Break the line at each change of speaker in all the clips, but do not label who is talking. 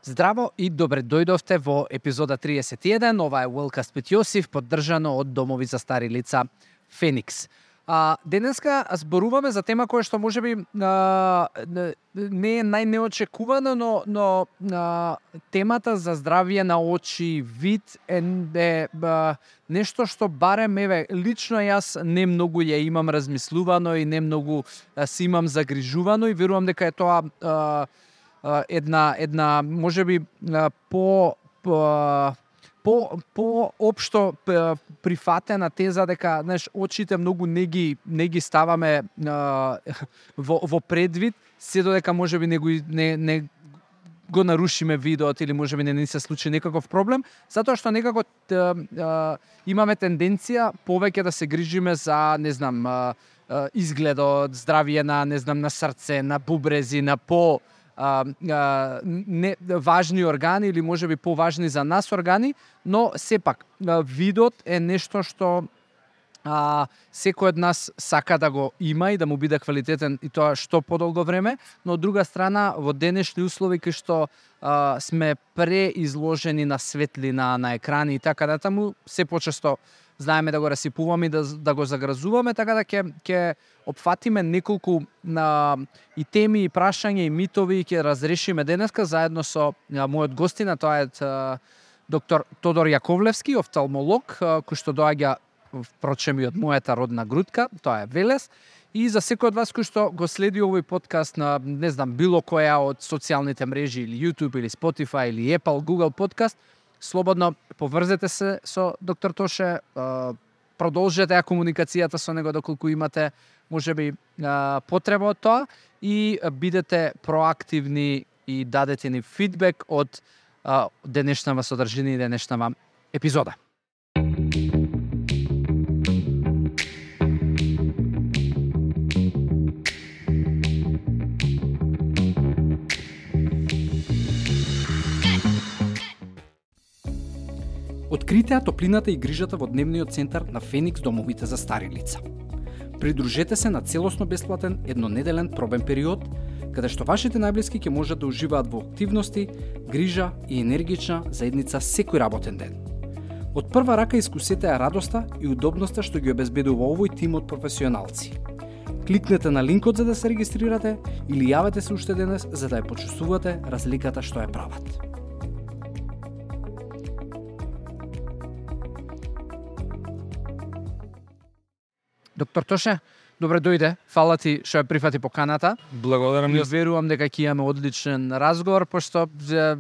Здраво и добре дојдовте во епизода 31. Ова е Уелкаст with Јосиф, поддржано од Домови за стари лица Феникс. Денеска зборуваме за тема која што можеби не е најнеочекувана, но темата за здравје на очи, вид е нешто што барем лично јас не многу ја имам размислувано и не многу си имам загрижувано и верувам дека е тоа една можеби по општо прифатена теза дека очите многу не ги ставаме во предвид, се додека можеби не го нарушиме видеот или можеби не се случи некаков проблем, затоа што некако имаме тенденција повеќе да се грижиме за, изгледот, здравје на срце, на бубрези, на не важни органи или можеби поважни за нас органи, но сепак видот е нешто што секој од нас сака да го има и да му биде квалитетен и тоа што подолго време, но од друга страна во денешни услови кај што сме преизложени на светлина, на екрани и така натаму, се почесто знаеме да го расипуваме и да го загразуваме, така да ќе опфатиме неколку и теми, и прашања, и митови, и ќе разрешиме денеска заедно со мојот гостина, тоа е доктор Тодор Јаковлевски, офталмолог, кој што доаѓа впрочем и од мојата родна грудка, тоа е Велес. И за секој од вас кој што го следи овој подкаст на, било која од социјалните мрежи, или YouTube, или Spotify, или Apple, Google подкаст, слободно поврзете се со доктор Тоше, продолжете ја комуникацијата со него доколку имате можеби потреба од тоа и бидете проактивни и дадете ни фидбек од денешнава содржина и денешнава епизода. Откритеа топлината и грижата во дневниот центар на Феникс домовите за стари лица. Придружете се на целосно бесплатен еднонеделен пробен период, каде што вашите најблиски ќе можат да уживаат во активности, грижа и енергична заедница секој работен ден. Од прва рака искусете ја радоста и удобноста што ги обезбедува овој тим од професионалци. Кликнете на линкот за да се регистрирате или јавете се уште денес за да ја почувствувате разликата што ја прават. Доктор Тоше, добре дојде. Фала ти што ја прифати поканата.
Благодарам.
И верувам дека ќе имаме одличен разговор, пошто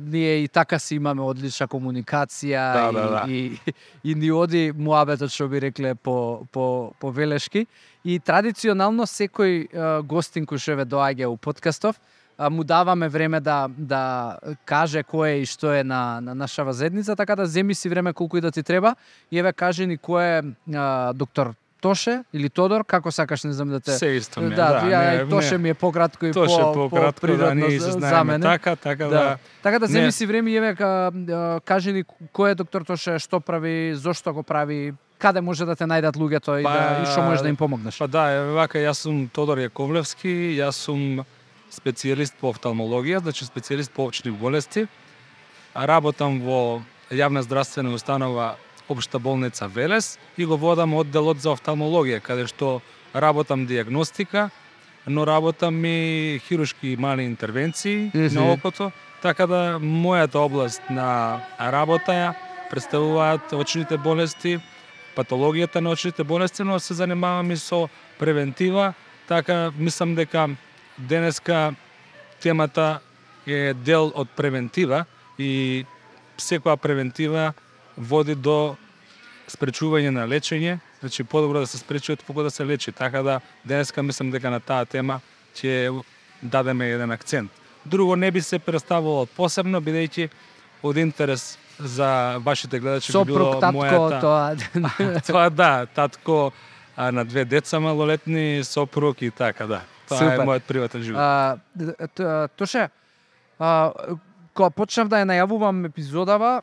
ние и така си имаме одлична комуникација. И ни оди муабетот, што би рекле по велешки. И традиционално секој гостин кој што доаѓа у подкастов, му даваме време да каже кој е и што е на нашава заедница, така да земи си време колку и да ти треба. И кажи ни кој е доктор Тоше или Тодор, како сакаш, не знам да те...
Се исто ми е,
Тоше ми е пократко и по-природно за мене. Така да земи си време и кажи ни кој е доктор Тоше, што прави, зошто го прави, каде може да те најдат луѓето и што можеш да им помогнеш.
Јас сум Тодор Јаковлевски, јас сум специјалист по офталмологија, значи специјалист по очни болести. Работам во јавна здравствена установа Општа болница Велес и го водам одделот за офталмологија, каде што работам диагностика, но работам и хируршки мали интервенции на окото, така да мојата област на работа ја представуваат очните болести, патологијата на очните болести, но се занимавам и со превентива, така мислам дека денеска темата е дел од превентива и секоја превентива води до спречување на лечење, значи подобро да се спречи отколку да се лечи. Така да денеска мислам дека на таа тема ќе дадеме еден акцент. Друго не би се представувало посебно, бидејќи од интерес за вашите гледачи би било мојата... Тоа татко на 2 деца малолетни, сопруг и така, да. Тоа е мојот приватен живот.
Тоше, кога почнав да ја најавувам епизодава,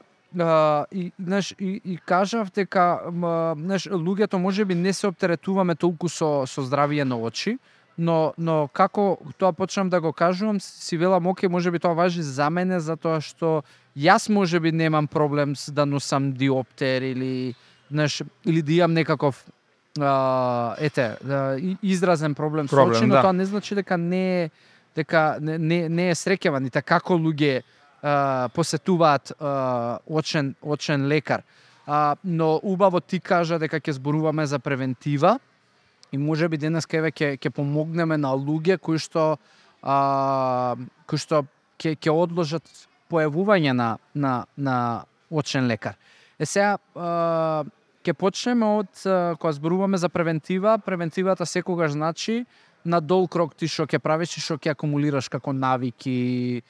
и кажав дека луѓето можеби не се оптеретуваме толку со здравје на очи, но како тоа почнам да го кажувам, си велам, оке, можеби тоа важи за мене, затоа што јас можеби немам проблем да носам диоптер или, знаеш, или да имам некаков изразен проблем со очи, но
да.
тоа не значи дека не е среќаван, и како луѓе посетуваат очен лекар. Но убаво ти кажа дека ќе зборуваме за превентива и можеби денес ќе помогнеме на луѓе кои што ќе одложат појавување на очен лекар. Сега ќе почнеме од кога зборуваме за превентива. Превентивата секогаш значи на долг рок ти што ќе правиш и што ќе акумулираш како навики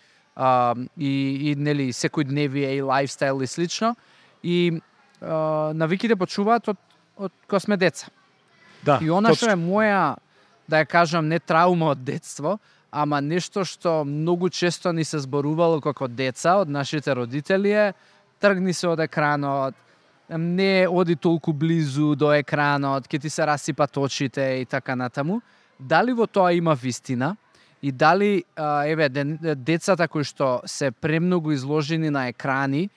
и нели секојдневие и лајфстайл и слично. И навиките почуваат од кога сме деца.
Да,
и она што е моја, да ја кажам, не траума од детство, ама нешто што многу често ни се зборувало како деца од нашите родители е: тргни се од екранот, не оди толку близу до екранот, ќе ти се расипат очите и така натаму. Дали во тоа има вистина? И дали децата кои што се премногу изложени на екрани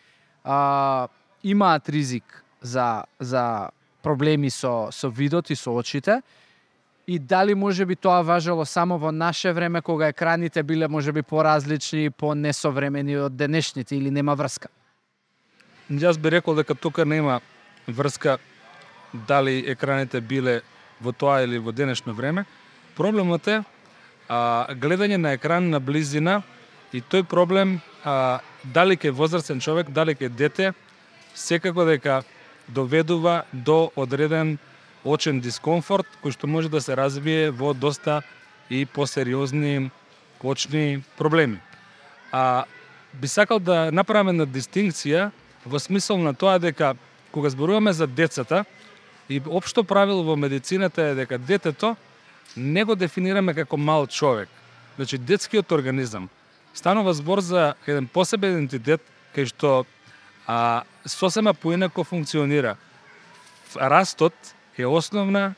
имаат ризик за проблеми со видот и со очите? И дали можеби тоа важело само во наше време, кога екраните биле можеби поразлични, понесовремени од денешните, или нема врска?
Јас би рекол дека тука нема врска дали екраните биле во тоа или во денешно време. Проблемот е гледање на екран на близина, и тој проблем дали ке возрастен човек, дали ке дете, секако дека доведува до одреден очен дискомфорт, кој што може да се развие во доста и посериозни очни проблеми. Би сакал да направиме една дистинкција во смисол на тоа дека кога зборуваме за децата, и општо правило во медицината е дека детето не го дефинираме како мал човек. Значи, детскиот организам. Станува збор за еден посебен идентитет кај што сосема поинако функционира. Растот е основна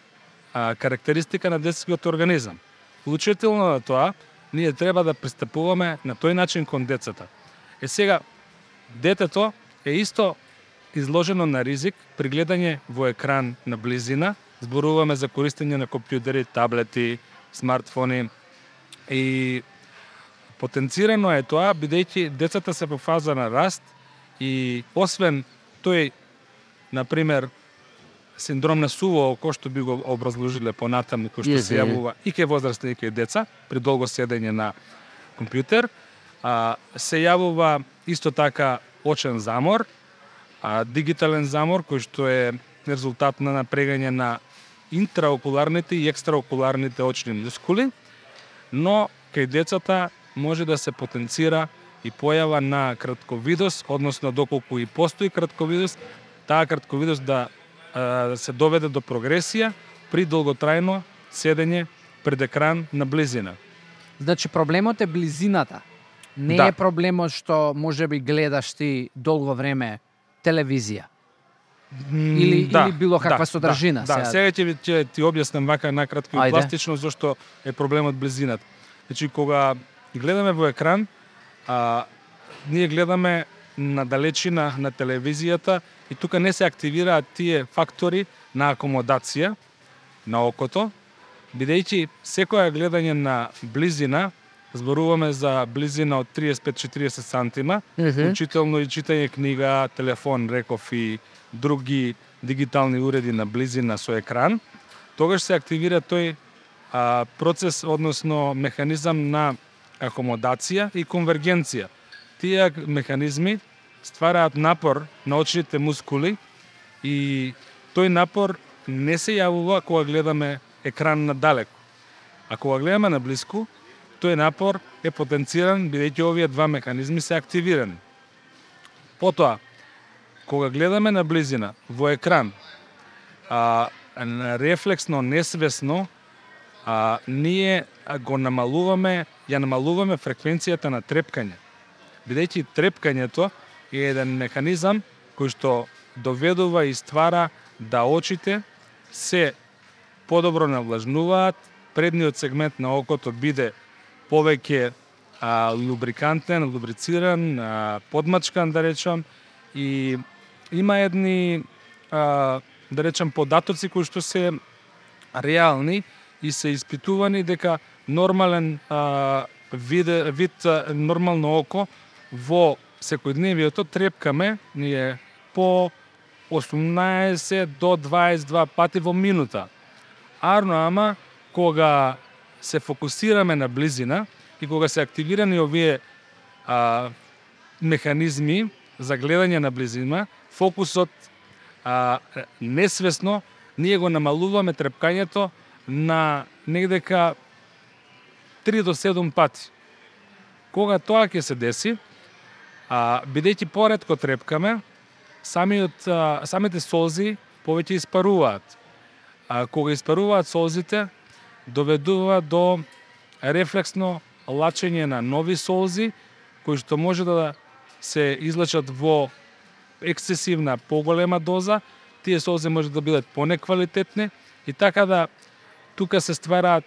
карактеристика на детскиот организам. Вклучително на тоа, ние треба да пристапуваме на тој начин кон децата. Сега, детето е исто изложено на ризик при гледање во екран на близина. Зборуваме за користење на компјутери, таблети, смартфони, и потенцирано е тоа, бидејќи децата се во фаза на раст и освен тој, например, синдром на суво око, што би го образложиле понатаму, кој што се јавува и кај возрастни и кај деца при долго седење на компјутер, се јавува исто така очен замор, дигитален замор, кој што е резултат на напрегање на интраокуларните и екстраокуларните очни мускули, но кај децата може да се потенцира и појава на кратковидост, односно доколку и постои кратковидост, таа кратковидост да се доведе до прогресија при долготрајно седење пред екран на близина.
Значи, проблемот е близината. Не е проблемот што можеби гледаш ти долго време телевизија. Или било каква содржина.
Сега ќе ти објаснам вака накратко и пластично зашто е проблемот близината. Значи, кога гледаме во екран, ние гледаме на далечина на телевизијата и тука не се активираат тие фактори на акомодација на окото, бидејќи секоја гледање на близина, зборуваме за близина од 35-40 сантима, вклучително и читање книга, телефон, реков и други дигитални уреди на близина со екран, тогаш се активира тој процес, односно механизам на акомодација и конвергенција. Тие механизми ствараат напор на очните мускули и тој напор не се јавува кога гледаме екран надалеку. А кога гледаме наблиску, тој напор е потенциран бидејќи овие два механизми се активирани. Потоа, кога гледаме на близина во екран, рефлексно, несвесно, ние го намалуваме фреквенцијата на трепкање. Бидејќи трепкањето е еден механизам кој што доведува и ствара да очите се подобро навлажнуваат предниот сегмент на окото биде повеќе лубрикантен, лубрициран, подмачкан, да речам, и има едни, да речам, податоци кои што се реални и се испитувани дека нормален вид нормално око во секојдневието трепкаме ние по 18 до 22 пати во минута. Ама кога се фокусираме на близина и кога се активирани овие механизми за гледање на близина, фокусот несвесно ние го намалуваме трепкањето на негдека 3 до 7 пати. Кога тоа ќе се деси, бидејќи поретко трепкаме, самите солзи повеќе испаруваат. Кога испаруваат солзите, доведува до рефлексно лачење на нови солзи, кои што може да се излачат во ексцесивна, поголема доза. Тие солзи може да бидат понеквалитетни и така да тука се ствараат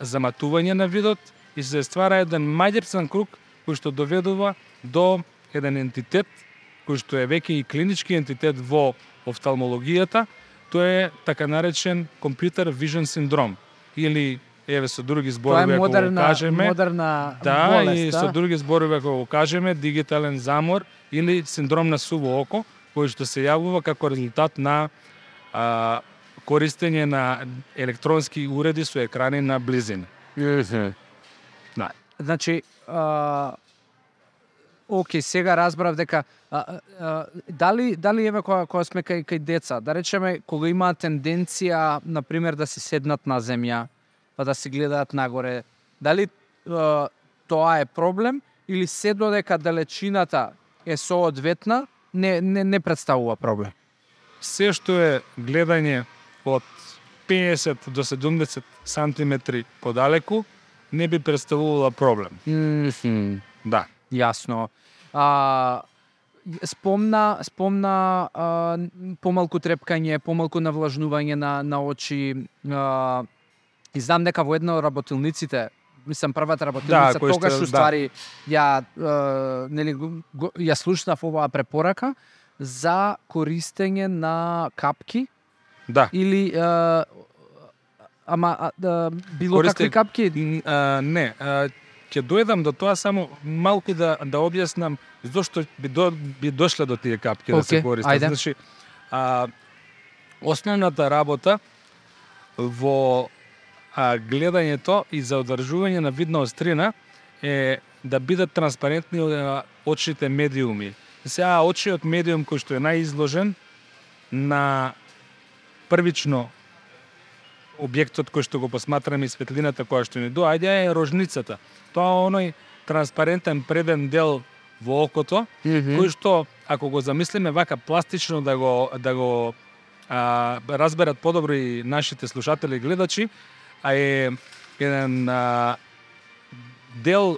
заматување на видот и се ствара еден маѓепсан круг кој што доведува до еден ентитет кој што е веќе и клинички ентитет во офталмологијата. Тоа е така наречен computer vision синдром или еве со други зборови ако го кажеме,
модерна
болест, и
да?
со други зборови ако го кажеме, дигитален замор или синдром на суво око, кој што се јавува како резултат на користење на електронски уреди со екрани на близина.
Да. Значи, окей, сега разбрав дека дали еве кога сме кај деца, да речеме кога имаат тенденција на пример да се седнат на земја, па да се гледаат нагоре, дали тоа е проблем или се додека далечината е соодветна не представува проблем?
Се што е гледање од 50 до 70 сантиметри подалеку не би представувала проблем. Да.
Јасно. Спомна помалку трепкање, помалку навлажнување на очи. И знам дека во една од работилниците, мислам првата работилница, тогаш уствари ја слушнав оваа препорака за користење на капки.
Да.
Или било какви капки?
Не, ќе дојдам до тоа, само малку да објаснам зошто би дошле до тие капки да се користат.
Ајде.
Значи, основната работа во гледањето и за одржување на видна острина е да бидат транспарентни очните медиуми. Сега очиот медиум кој што е најизложен на првично објектот кој што го посматраме и светлината која што ни доаѓа е рожницата. Тоа оној транспарентен преден дел во окото, кој што ако го замислиме вака пластично да го разберат подобро и нашите слушатели и гледачи, е еден дел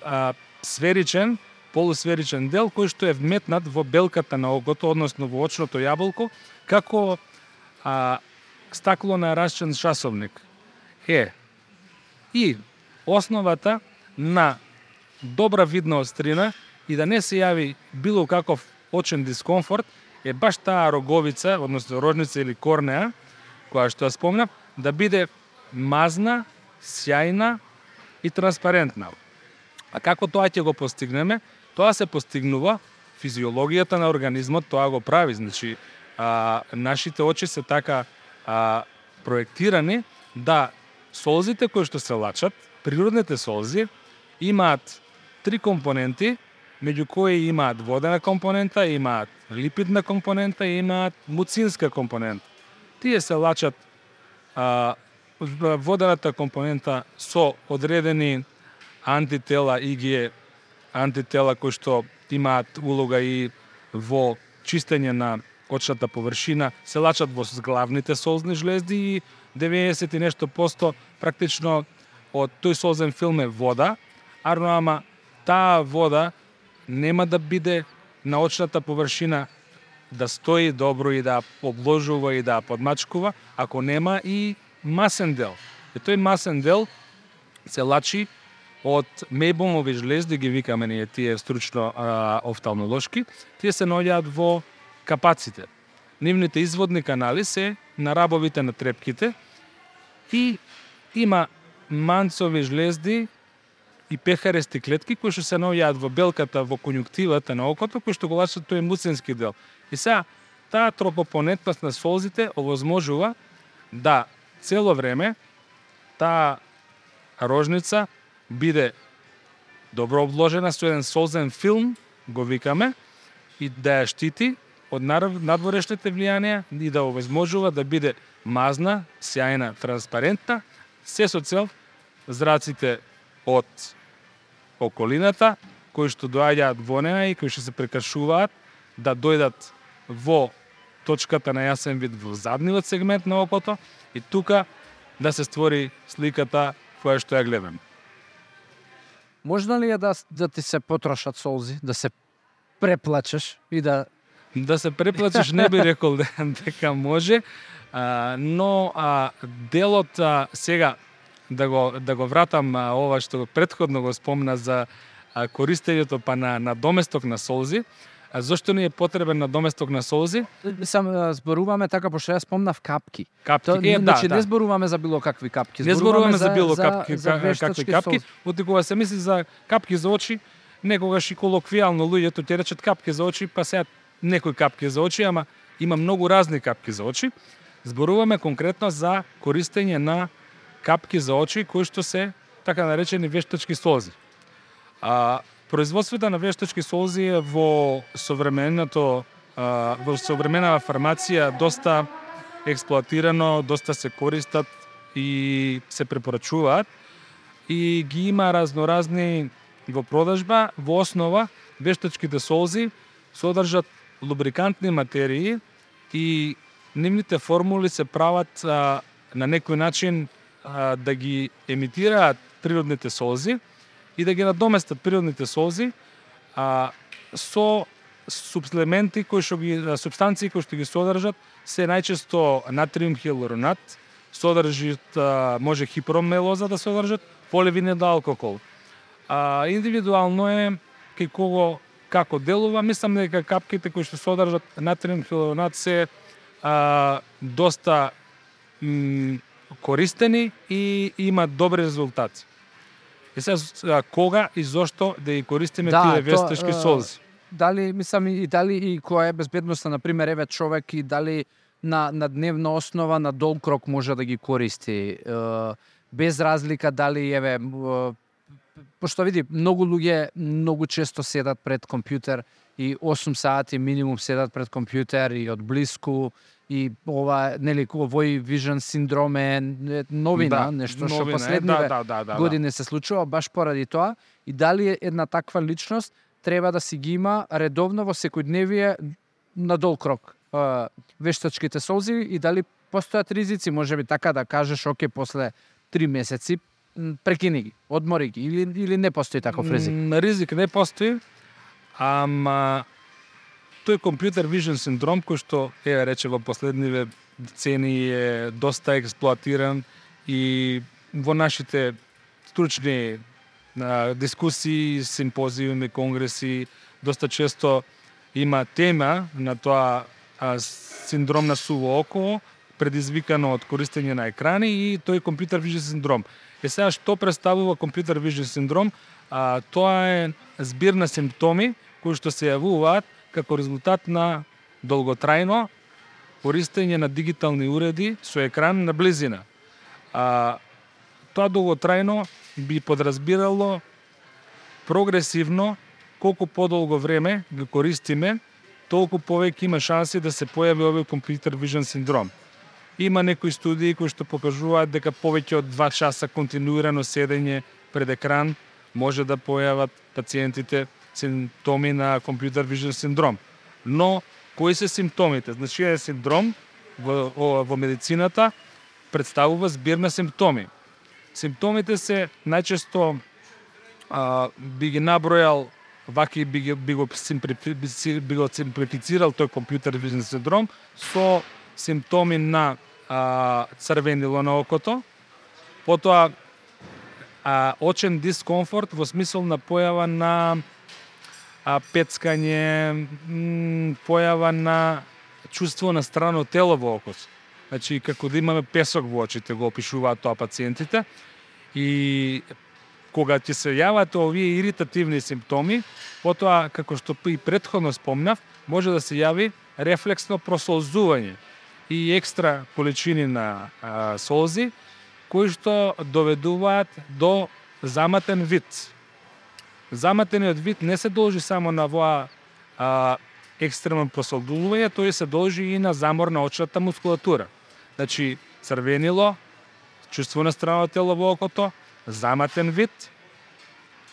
сферичен, полусферичен дел кој што е вметнат во белката на окото, односно во очното јаболко, како стакло на расчен часовник. И основата на добра видна острина и да не се јави било каков очен дискомфорт е баш таа роговица, односно рожница или корнеа, која што ја спомнав, да биде мазна, сјајна и транспарентна. А како тоа ќе го постигнеме? Тоа се постигнува физиологијата на организмот, тоа го прави. Значи, нашите очи се така проектирани да солзите кои што се лачат, природните солзи, имаат 3 компоненти, меѓу кои имаат водена компонента, имаат липидна компонента и имаат муцинска компонента. Тие се лачат водената компонента со одредени антитела, ИГ антитела кои што имаат улога и во чистење на очната површина, се лачат во главните солзни жлезди и 90 и нешто посто практично од тој солзен филм е вода, ама таа вода нема да биде на очната површина да стои добро и да обложува и да подмачкува, ако нема и масен дел. И тој масен дел се лачи од мејбомови жлезди, ги викаме ние тие стручно офталмолошки, тие се наоѓаат во капаците. Нивните изводни канали се на рабовите на трепките и има манцови жлезди и пехарести клетки кои што се наоѓаат во белката, во конјуктивата на окото, кои што го лачат тој муцински дел. И сега, таа тропопонетност на солзите овозможува да цело време таа рожница биде добро обложена со еден солзен филм, го викаме, и да ја штити од надворешните влијанија и да овозможува да биде мазна, сјајна, транспарентна, се со цел зраците од околината, кои што доаѓаат во неа и кои што се прекашуваат, да дојдат во точката на јасен вид во задниот сегмент на окото и тука да се створи сликата која што ја гледам.
Можно ли е да ти се потрошат солзи, да се преплачеш и да...
Да се преплачеш не би рекол дека може, но делот сега да го вратам ова што претходно го спомна за користењето па на доместок на солзи. Зошто ни е потребен на доместок на солзи?
Сам зборуваме така, пошто ја спомнав капки.
Капки,
значи, не зборуваме за било какви капки.
Не зборуваме за било какви капки.
Солзи.
Кога се мисли за капки за очи, некогаш и колоквијално луѓето ќе речат капки за очи, па сега некои капки за очи, ама има многу разни капки за очи. Зборуваме конкретно за користење на капки за очи кои што се така наречени вештачки солзи. Производството на вештачки солзи е во современата фармација доста експлоатирано, доста се користат и се препорачуваат и ги има разноразни во продажба. Во основа вештачките солзи содржат лубрикантни материи и нивните формули се прават на некој начин да ги емитираат природните солзи и да ги надоместат природните солзи со супплементи супстанции кои што ги содржат се најчесто натриум хилуронат, содржат може хипромелоза да содржат, поливинил алкохол. Индивидуално е кај кого како делува, мислам дека капките кои што содржат натриум хилуронат се доста користени и имаат добри резултати. И сега кога и зошто да ги користиме тие вештачки солзи?
Дали мислам и дали и која е безбедноста, на пример, еве човек и дали на дневна основа на долг рок може да ги користи без разлика дали еве пошто види многу луѓе многу често седат пред компјутер и 8 сати минимум седат пред компјутер и од блиску и ова нели овој вижен синдром е новина, нешто што последниве години се случува баш поради тоа и дали една таква личност треба да си ги има редовно во секојдневие на долг рок вештачките солзи и дали постојат ризици, можеби така да кажеш, оке, после 3 месеци прекини ги, одмори ги или не постои таков ризик?
Ризик не постои, ама тој компјутер вижен синдром кој што рече во последниве децени е доста експлоатиран и во нашите стручни дискусии, симпозиуми, конгреси, доста често има тема на тоа синдром на суво око, предизвикано од користење на екрани и тој компјутер вижен синдром. Сега што представува компјутер вижен синдром? Тоа е збир на симптоми кои што се јавуваат како резултат на долготрајно користење на дигитални уреди со екран на близина. Тоа долготрајно би подразбирало прогресивно колку подолго време го користиме, толку повеќе има шанси да се појави овој компјутер вижен синдром. Има некои студии кои што покажуваат дека повеќе од 2 часа континуирано седење пред екран може да појават пациентите симптоми на компјутер вижен синдром. Но кои се симптомите? Значи е синдром во медицината представува збир на симптоми. Симптомите се најчесто би ги набројал ваки би го симплифицирал тој компјутер вижен синдром со симптоми на црвенило на окото, Потоа очен дискомфорт во смисол на појава на пецкање, појава на чувство на страно тело во окос. Значи, како да имаме песок во очите, го опишуваат тоа пациентите. И кога ќе се јават овие иритативни симптоми, потоа, како што и претходно спомнав, може да се јави рефлексно просолзување и екстра количини на солзи, кои што доведуваат до заматен вид. Заматениот вид не се должи само на воа екстремно просолзување, тој се должи и на замор на очната мускулатура. Значи, црвенило, чувство на страно тело во окото, заматен вид,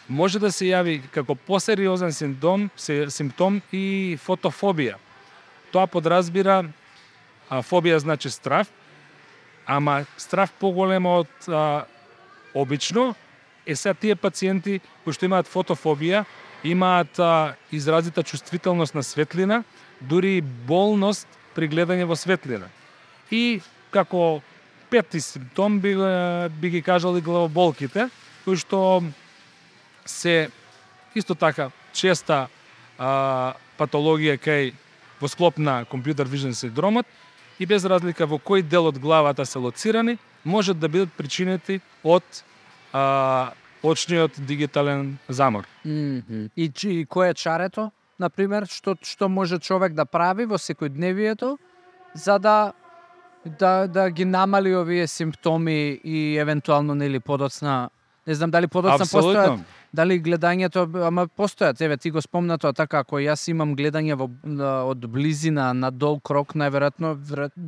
може да се јави како посериозен симптом и фотофобија. Тоа подразбира, фобија значи страв, ама страв поголема од обично, сега тие пациенти кои што имаат фотофобија, имаат изразита чувствителност на светлина, дури болност при гледање во светлина. И како пети симптом би ги кажал и главоболките, кои што се исто така честа патологија кај во склоп на компјутер вижен синдромот и без разлика во кој дел од главата се лоцирани, можат да бидат причинети од очниот дигитален замор.
И кој е чарето, например, што може човек да прави во секојдневието за да ги намали овие симптоми и евентуално нели подоцна, не знам дали подоцна постојат, дали гледањето, ама постојат, еве ти го спомна тоа така, ако јас имам гледање од близина на дол крок, најверојатно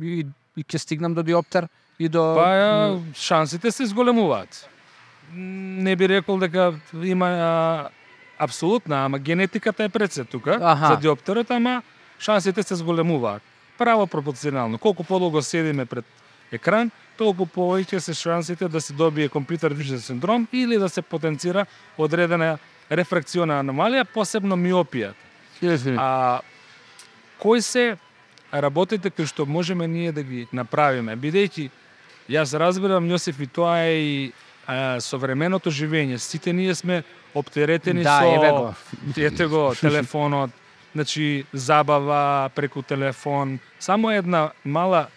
и ќе стигнам до диоптер и до
шансите се зголемуваат. Не би рекол дека има апсолутна, ама генетиката е пред се тука за диоптерот, ама шансите се зголемуваат. Право пропорционално. Колку подолго седиме пред екран, толку повеќе се шансите да се добие компјутер вижен синдром или да се потенцира одредена рефракциона аномалија, посебно миопија. Кои се работите кои што можеме ние да ги направиме? Бидејќи јас разбирам, Јосиф, и тоа е и современото живење. Сите ние сме оптеретени со ете го телефонот, значи забава преку телефон. Само една мала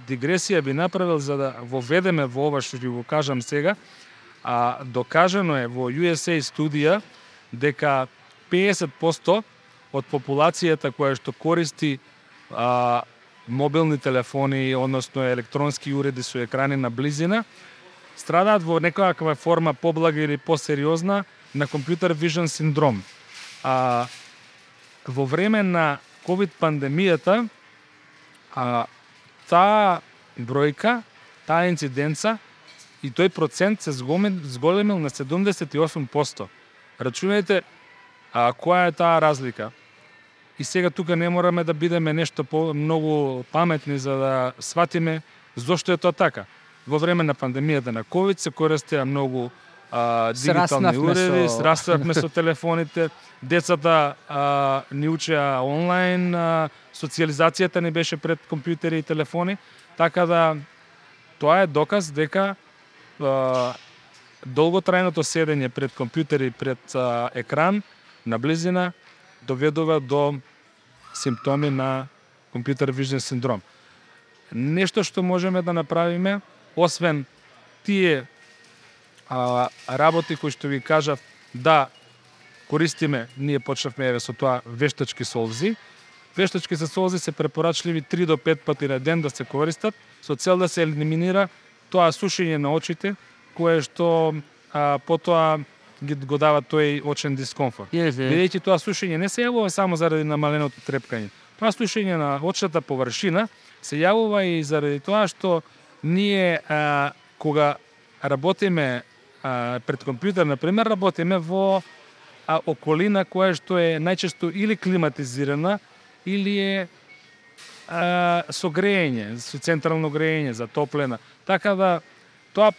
дигресија би направил за да воведеме во ова што ќе го кажам сега. Докажано е во USA студија дека 50% од популацијата која што користи мобилни телефони, односно електронски уреди со екрани на близина, страдаат во некоја форма поблага или посериозна на компјутер вижен синдром. Во време на ковид пандемијата таа бројка, таа инциденца и тој процент се зголемил на 78%. Рачунајте која е таа разлика. И сега тука не мораме да бидеме нешто многу паметни за да сватиме зошто е тоа така. Во време на пандемијата на ковид се користеа многу дигитални уреди, сраснавме со телефоните, децата ни учеа онлайн, социјализацијата не беше пред компјутери и телефони, така да тоа е доказ дека долготрајното седење пред компјутери, пред екран, на близина, доведува до симптоми на компјутер вижен синдром. Нешто што можеме да направиме, освен тие работи кои што ви кажав да користиме, ние почнавме со тоа вештачки солзи. Вештачки солзи се препорачливи 3 до 5 пати на ден да се користат со цел да се елиминира тоа сушење на очите кое што потоа го дава тој очен дискомфорт. Бидејќи тоа сушење не се јавува само заради намаленото трепкање. Тоа сушење на очната површина се јавува и заради тоа што ние кога работиме пред компјутер, например, работиме во околина која што е најчесто или климатизирана, или е со грејење, со централно грејење, затоплена. Така да тоа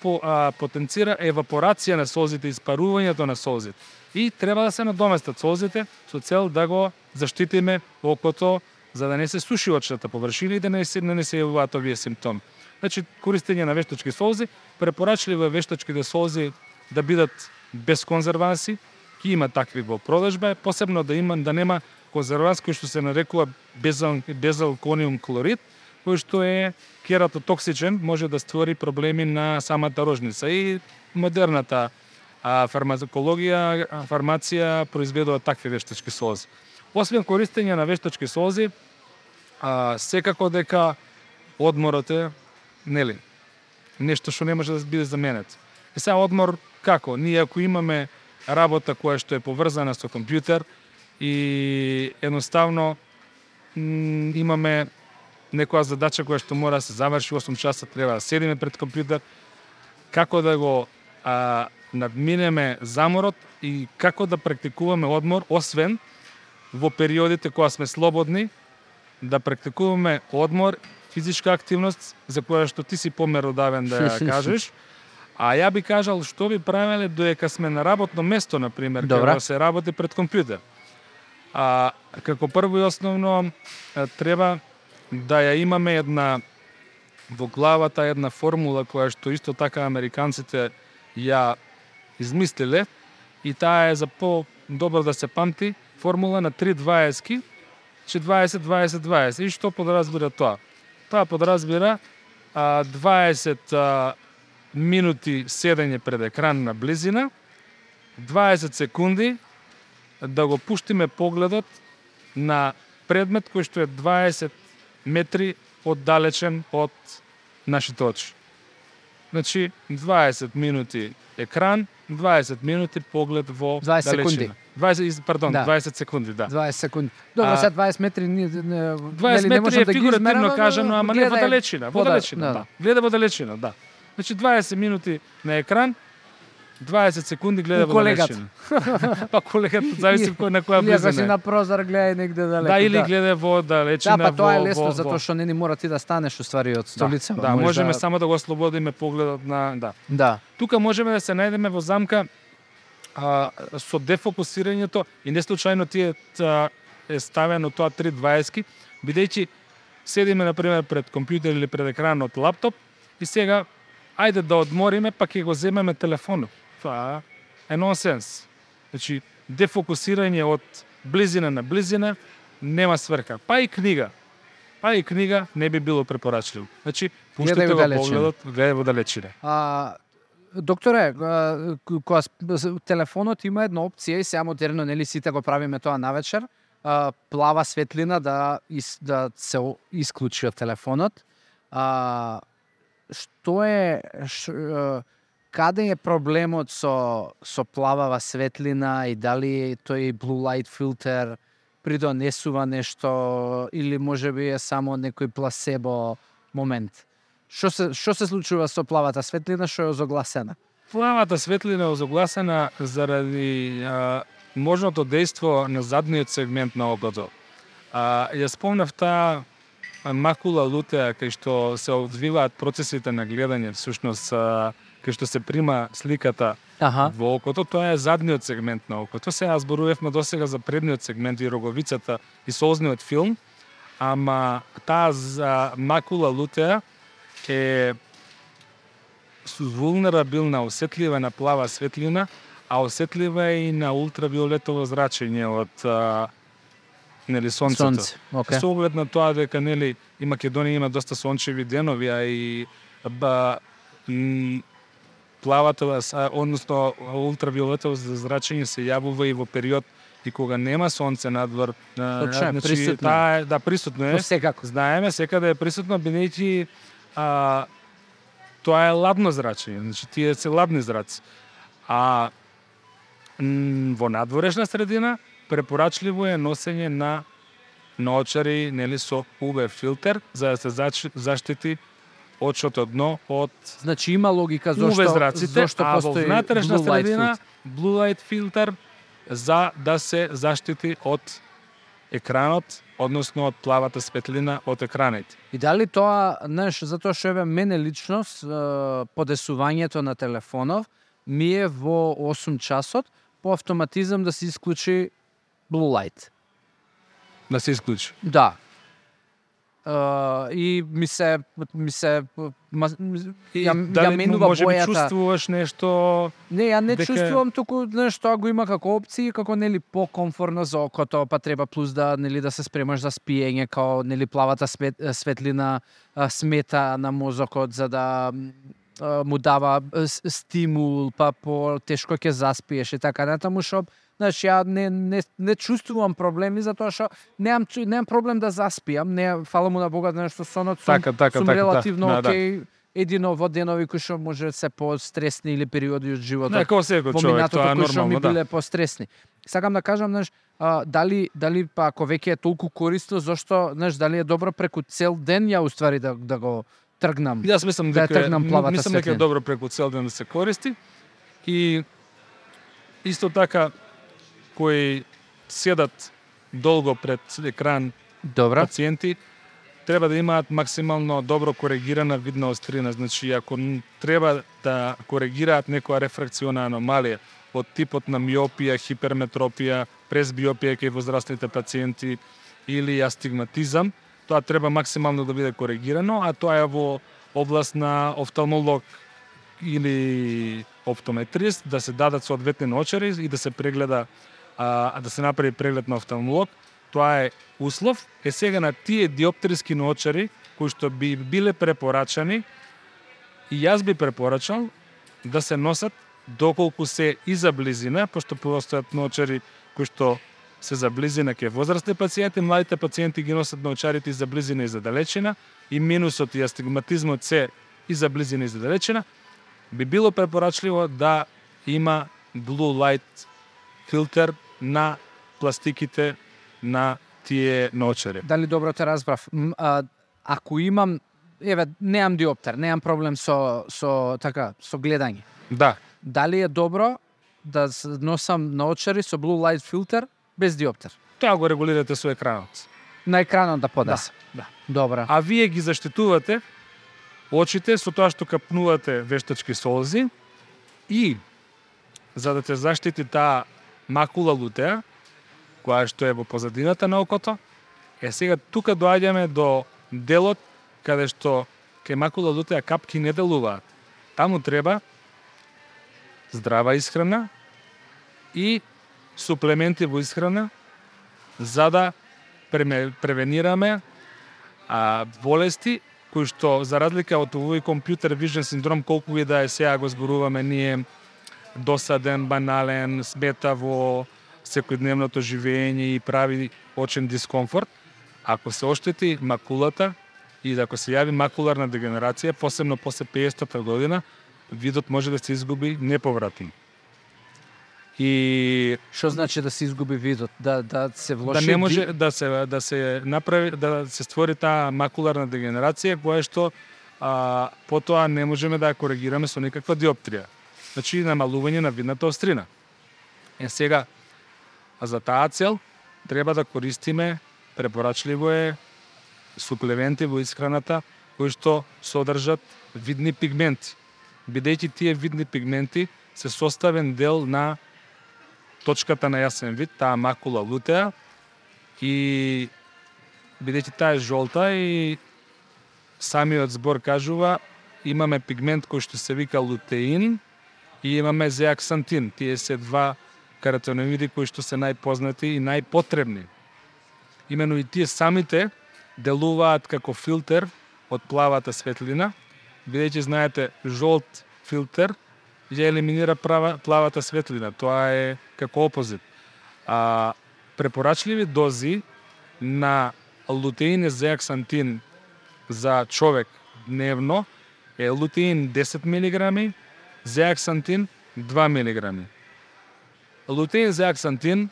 потенцира евапорација на солзите, испарувањето на солзите. И треба да се надоместат солзите со цел да го заштитиме окото за да не се суши очната површина и да не се јавуваат овие симптоми. Значи, користење на вештачки солзи, препорачливо е вештачките солзи да бидат без конзерванси, ки има такви во продажба, посебно да нема конзерванс кој што се нарекува безалкониум хлорид, кој што е кератотоксичен, може да створи проблеми на самата рожница. И модерната фармација произведува такви вештачки солзи. Освен користење на вештачки солзи, секако дека одморот е, нели, нешто што не може да биде заменет. И сега одмор како? Ние ако имаме работа која што е поврзана со компјутер и едноставно имаме некоја задача која што мора да се заврши 8 часа, треба да седиме пред компјутер, како да го надминеме заморот и како да практикуваме одмор, освен во периодите кога сме слободни, да практикуваме одмор, физичка активност, за која што ти си померодавен да ја кажеш. А ја би кажал што би правеле додека сме на работно место, например, кога се работи пред компјутер. Како прво и основно треба да ја имаме во главата една формула која што исто така американците ја измислиле и таа е за по-добро да се памти, формула на 3-20-ки, 20-20-20. И што подразбира тоа? Тоа подразбира 20 минути седење пред екран на близина, 20 секунди да го пуштиме погледот на предмет кој што е 20 метри оддалечен од нашите очи. Значи, 20 минути екран, 20 минути поглед во
20
далечина. 20 секунди, да.
20 секунди. Добро, сега 20 метри
20 метри е фигуративно кажано, ама не во далечина, да. Гледа во далечина, да. Значи 20 минути на екран, 20 секунди гледа во далечина. Па колегата зависи на која близина.
Или си на прозор гледа негде далеко.
Да, или гледа во далечина.
Да, па тоа е лесно затоа што не мора ти да станеш уствари од столица.
Да, можеме само да го ослободиме погледот на
Да.
Тука можеме да се најдеме во замка со дефокусирањето и не случајно ти е ставено тоа 3-20-ки, бидејќи седиме например пред компјутер или пред екран од лаптоп и сега ајде да одмориме, па ќе го земеме телефонот. Тоа е нонсенс. Значи, дефокусирање од близина на близина нема сврка. Па и книга не би било препорачливо. Значи, пуштите го погледот, гледај во далечина.
Докторе, кога телефонот има една опција и сега модерно, нели сите го правиме тоа навечер, плава светлина да се исклучи од телефонот. Што е каде е проблемот со плавава светлина и дали тој blue light filter придонесува нешто или можеби е само некој пласебо момент? Што се случува со плавата светлина што е озогласена?
Плавата светлина е озогласена заради можното дејство на задниот сегмент на окото. Ја спомнав таа макула лутеа кај што се одвиваат процесите на гледање, всушност кај што се прима сликата во окото, тоа е задниот сегмент на окото. Сега зборувавме досега за предниот сегмент и роговицата и солзниот филм, ама таа за макула лутеа е вулнерабилна, осетлива на плава светлина, а осетлива и на ултравиолетово зрачење од сонцето.
Okay.
Со оглед на тоа дека и Македонија има доста сончеви денови, а и плавата, односно ултравиолетово зрачење се јавува и во период и кога нема сонце надвор.
Присутно.
Да, присутно е. Знаеме, секаде е присутно, бидејќи тоа е ладно зрачење, значи тие се ладни зраци. А во надворешна средина препорачливо е носење на наочари со UV филтер за да се заштити очото дно од
Значи има логика
зашто
постои
во внатрешна
blue light
средина
filter.
blue light филтер за да се заштити од екранот, односно од плавата светлина од екраните.
И дали тоа, затоа што мене лично подесувањето на телефонов ми е во 8 часот по автоматизам да се исклучи blue light.
Да се исклучи.
Да. и ми се ја
Дали
менува
може би
бојата.
чувствуваш нешто?
Не, ја не
дека-
чувствувам туку нешто го има како опции, како нели покомфорно за окото, па треба плюс да да се спремаш за спиење, као нели плавата светлина смета на мозокот за да му дава стимул, па по тешко ќе заспиеш и така натаму, што ја не чувствувам проблеми затоа што немам проблем да заспиам, не фала му на Бога нешто сонот сум,
Така,
сум релативно
да.
окей. Едино во денови кои што може се постресни или периоди од животот.
Не, како секој
Во
човек,
минатото
тоа е
кои што ми
нормално, да.
биле постресни. Сакам да кажам, дали па ако веќе е толку корисно, зошто, дали е добро преку цел ден ја уствари да го тргнам.
Јас мислам
Да ја
дека
тргнам плавата
мислам дека е
светлина.
добро преку цел ден да се користи и исто така кои седат долго пред екран
Добра.
пациенти треба да имаат максимално добро коригирана видна острина. Значи, ако треба да коригираат некоја рефракциона аномалија од типот на миопија, хиперметропија, презбиопија кај возрастните пациенти или астигматизам, тоа треба максимално да биде коригирано, а тоа е во област на офталмолог или оптометрист, да се дадат соодветни наочари и да се прегледа, да се направи преглед на офталмолог. Тоа е услов. Сега на тие диоптерски наочари кои што би биле препорачани, и јас би препорачал да се носат доколку се и за близина, пошто постојат наочари кои што се за близина кај возрастни пациенти, младите пациенти ги носат наочарите и за близина и за далечина, и минусот и астигматизмот се и за близина и за далечина, би било препорачливо да има blue light филтер на пластиките на тие наочари.
Дали добро те разбрав? Ако имам, немам диоптер, немам проблем со гледање.
Да,
Дали е добро да носам наочари со blue light филтер без диоптер?
тоа го регулирате со екранот.
На екранот да поднесе.
Да.
Добра.
А вие ги заштитувате очите со тоа што капнувате вештачки солзи и за да те заштити таа макула лутеа, која што е во позадината на окото, сега тука доаѓаме до делот каде што кај макула лутеа капки не делуваат. Таму треба здрава исхрана и суплементи во исхрана за да превенираме болести кои што за разлика од овој компјутер вижен синдром, колку и да е сега го зборуваме ние, досаден, банален, смета во секојдневното живење и прави очен дискомфорт, ако се оштети макулата и ако се јави макуларна дегенерација, посебно после 50-та година, видот може да се изгуби неповратно. И
Што значи да се изгуби видот? Да се влоши
да не може да се направи, да се створи таа макуларна дегенерација која што потоа не можеме да ја коригираме со никаква диоптрија. Значи намалување на видната острина. Сега за таа цел треба да користиме, препорачливо е, суплементи во исхраната кои што содржат видни пигменти. Бидејќи тие видни пигменти се составен дел на точката на јасен вид, таа макула лутеа, и бидејќи таа е жолта и самиот збор кажува, имаме пигмент кој што се вика лутеин и имаме зеаксантин. Тие се два каротиноиди кои што се најпознати и најпотребни. Имено и тие самите делуваат како филтер од плавата светлина, бидејќи знаете жолт филтер ја елиминира плавата светлина. Тоа е како опозит. Препорачливи дози на лутеин и зеаксантин за човек дневно е лутеин 10 мг, зеаксантин 2 мг. Лутеин и зеаксантин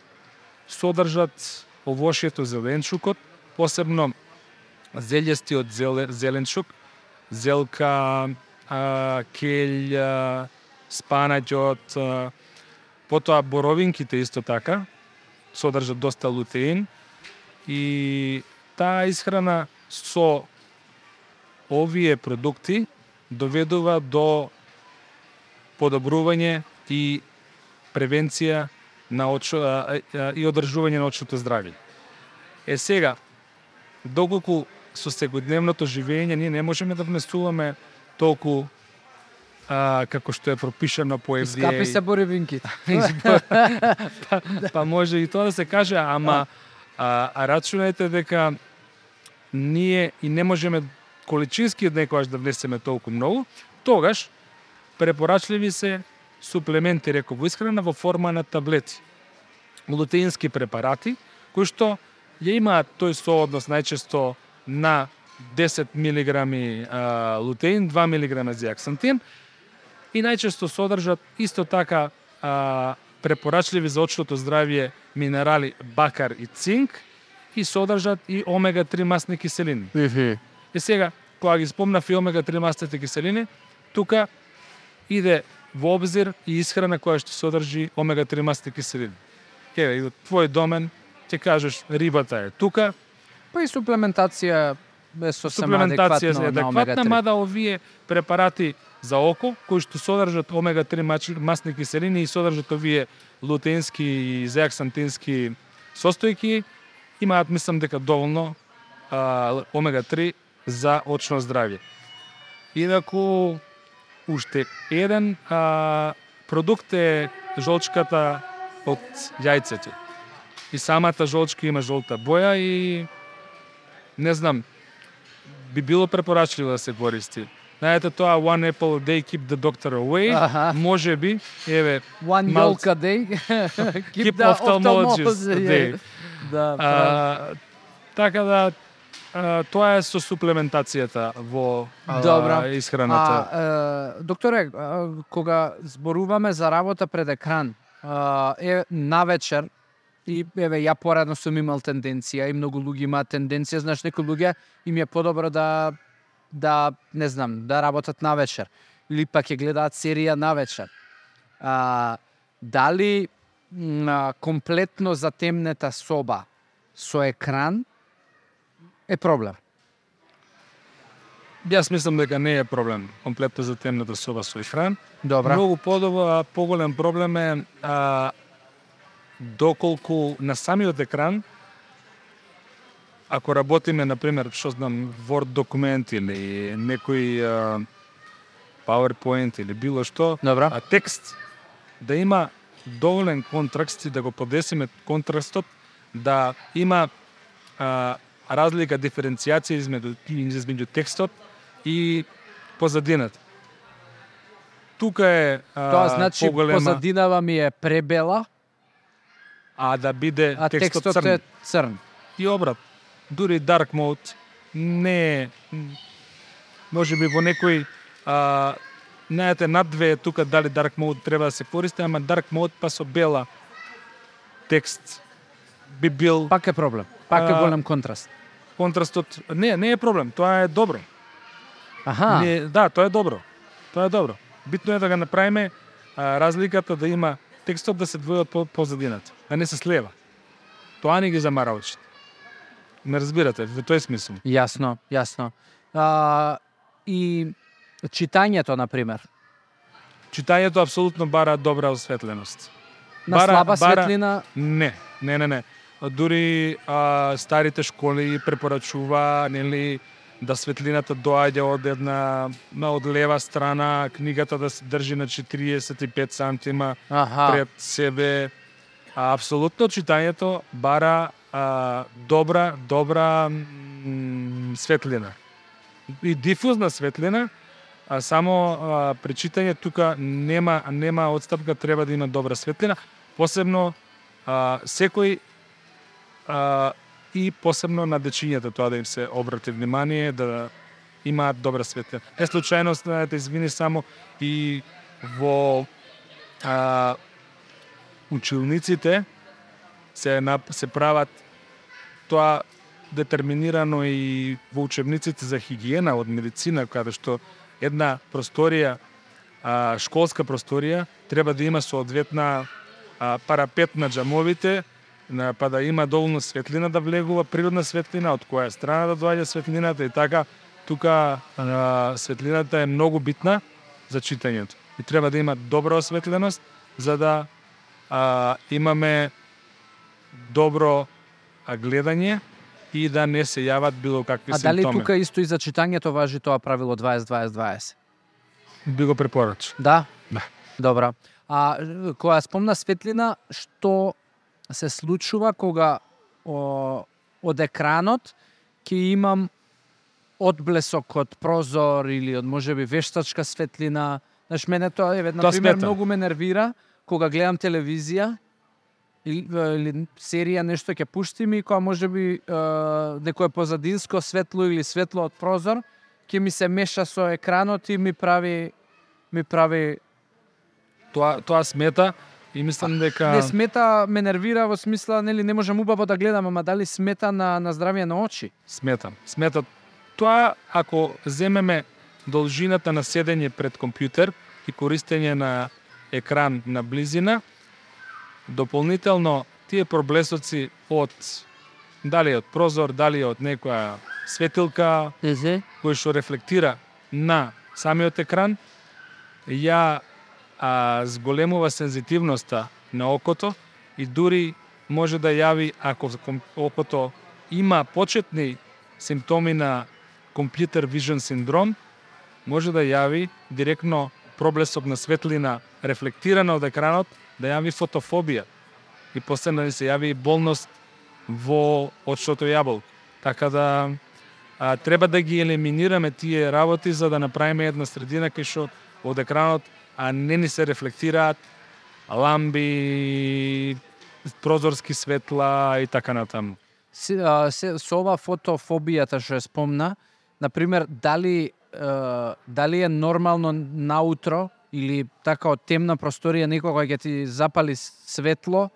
содржат овошјето зеленчукот, посебно зелјестиот зеленчук, зелка, келј, спанаќот, потоа боровинките исто така содржат доста лутеин и таа исхрана со овие продукти доведува до подобрување и превенција на и одржување на очното здравје. Сега, доколку со секојдневното живење ние не можеме да внесуваме толку како што е пропишано по FDA.
Скапи се боривинките.
Па може и тоа да се каже, ама рачунајте дека ние и не можеме количински некогаш да внесеме толку многу, тогаш препорачливи се суплементи, реков, во исхрана во форма на таблети. Лутеински препарати, кои што ја имаат тој сооднос најчесто на 10 мг лутеин, 2 мг зеаксантин и најчесто содржат исто така препорачливи за очното здравје минерали бакар и цинк и содржат и омега-3 масни киселини. И сега, кога ги спомнав и омега-3 масните киселини, тука иде во обзир и исхрана која што содржи омега-3 масни киселини. Еве, и од твој домен ќе кажеш рибата е тука.
Па и суплементација е сосема
Суплементација е
адекватно на
адекватна,
омега-3.
мада овие препарати за око, кои што содржат омега-3 масни киселини и содржат овие лутеински и зеаксантински состојки, имаат, мислам дека доволно омега-3 за очно здравје. Инаку, уште еден продукт е жолчката од јајцето. И самата жолчка има жолта боја и не знам, би било препорачливо да се користи. Знаете тоа one apple a day keep the doctor away, може би, еве,
One yolk a day, keep the ophthalmologist
away.
Да,
така да, тоа е со суплементацијата во исхраната.
Докторе, кога зборуваме за работа пред екран, навечер, и еве ја порадно сум имал тенденција и многу луѓе имаат тенденција, знаеш, некои луѓе им е подобро да не знам, да работат навечер или пак ќе гледаат серија навечер. Дали комплетно затемнета соба со екран е проблем?
Јас мислам дека не е проблем комплетно затемнета соба со екран.
Добра.
Многу поголем проблем е доколку на самиот екран, ако работиме, например, што знам, Word документ или некој PowerPoint или било што,
Добра.
Текст, да има доволен контраст и да го подесиме контрастот, да има разлика, диференцијација измеѓу текстот и позадината. Тука е
Тоа значи
поголема,
позадинава ми е пребела,
а да биде
а
текстот
текстот
црн.
е црн.
И обрат. Дури dark mode не е, може би во некој знаете, над две тука дали dark mode треба да се користи, ама dark mode па со бела текст би бил
Пак е проблем. Пак е голем контраст.
контрастот. Не е проблем, тоа е добро.
Аха.
Да, тоа е добро. Тоа е добро. Битно е да го направиме разликата да има текстот да се двои од позадината, а не се слева. Тоа не ги замара очите. Не разбирате, во тој смисол.
Јасно. И читањето, например.
Читањето апсолутно бара добра осветленост.
На слаба светлина?
Не. Дури старите школи препорачува, нели, да светлината доаѓа од лева страна, книгата да се држи на 45 сантима пред себе. Апсолутно читањето бара добра светлина. И дифузна светлина, само при читање тука нема одстапка, треба да има добра светлина, посебно секој и посебно на дечињата, тоа да им се обрати внимание, да имаат добра светлина. Не случајно, знаете, извини, само и во училниците се прават тоа детерминирано и во учебниците за хигиена од медицина, каде што една просторија, школска просторија, треба да има соодветна парапет на џамовите, па да има доволно светлина да влегува, природна светлина, од која страна да доаѓа светлината и така. Тука светлината е многу битна за читањето. И треба да има добра осветленост за да имаме добро гледање и да не се јават било какви
А дали
симптоми.
тука исто и за читањето важи тоа правило 20-20-20?
Би го препорача.
Да?
Да.
Добра. А која спомна светлина, што се случува кога од екранот ќе имам одблесок од прозор или од можеби вештачка светлина. Знаеш, мене тоа на
Тоа
пример
смета.
многу ме нервира кога гледам телевизија или серија нешто ќе пуштим и кога можеби некое позадинско светло или светло од прозор ќе ми се меша со екранот и ми прави
Тоа смета и мислам дека
не смета, ме нервира во смисла, нели, не можам убаво да гледам, ама дали смета на здравје на очи?
Смета. Тоа ако земеме должината на седење пред компјутер и користење на екран на близина, дополнително тие проблесоци од дали од прозор, дали од некоја светилка кој што рефлектира на самиот екран, ја зголемува сензитивноста на окото и дури може да јави, ако окото има почетни симптоми на компјутер вижн синдром, може да јави директно проблесок на светлина рефлектирана од екранот, да јави фотофобија и после да се јави болност во очното јаболко. Така да треба да ги елиминираме тие работи за да направиме една средина кај што од екранот не ни се рефлектираат ламби, прозорски светла и така натаму.
Со ова фотофобијата што ја спомна, например, дали е нормално наутро или така од темна просторија некога ќе ти запали светло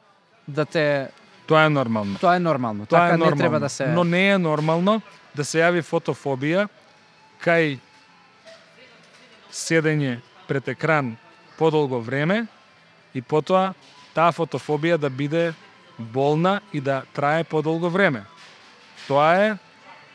да те...
Тоа е нормално.
Тоа е нормално.
Тоа
Така
е нормално.
не треба да се...
Но не е нормално да се јави фотофобија кај седење пред екран подолго време и потоа таа фотофобија да биде болна и да трае подолго време. Тоа е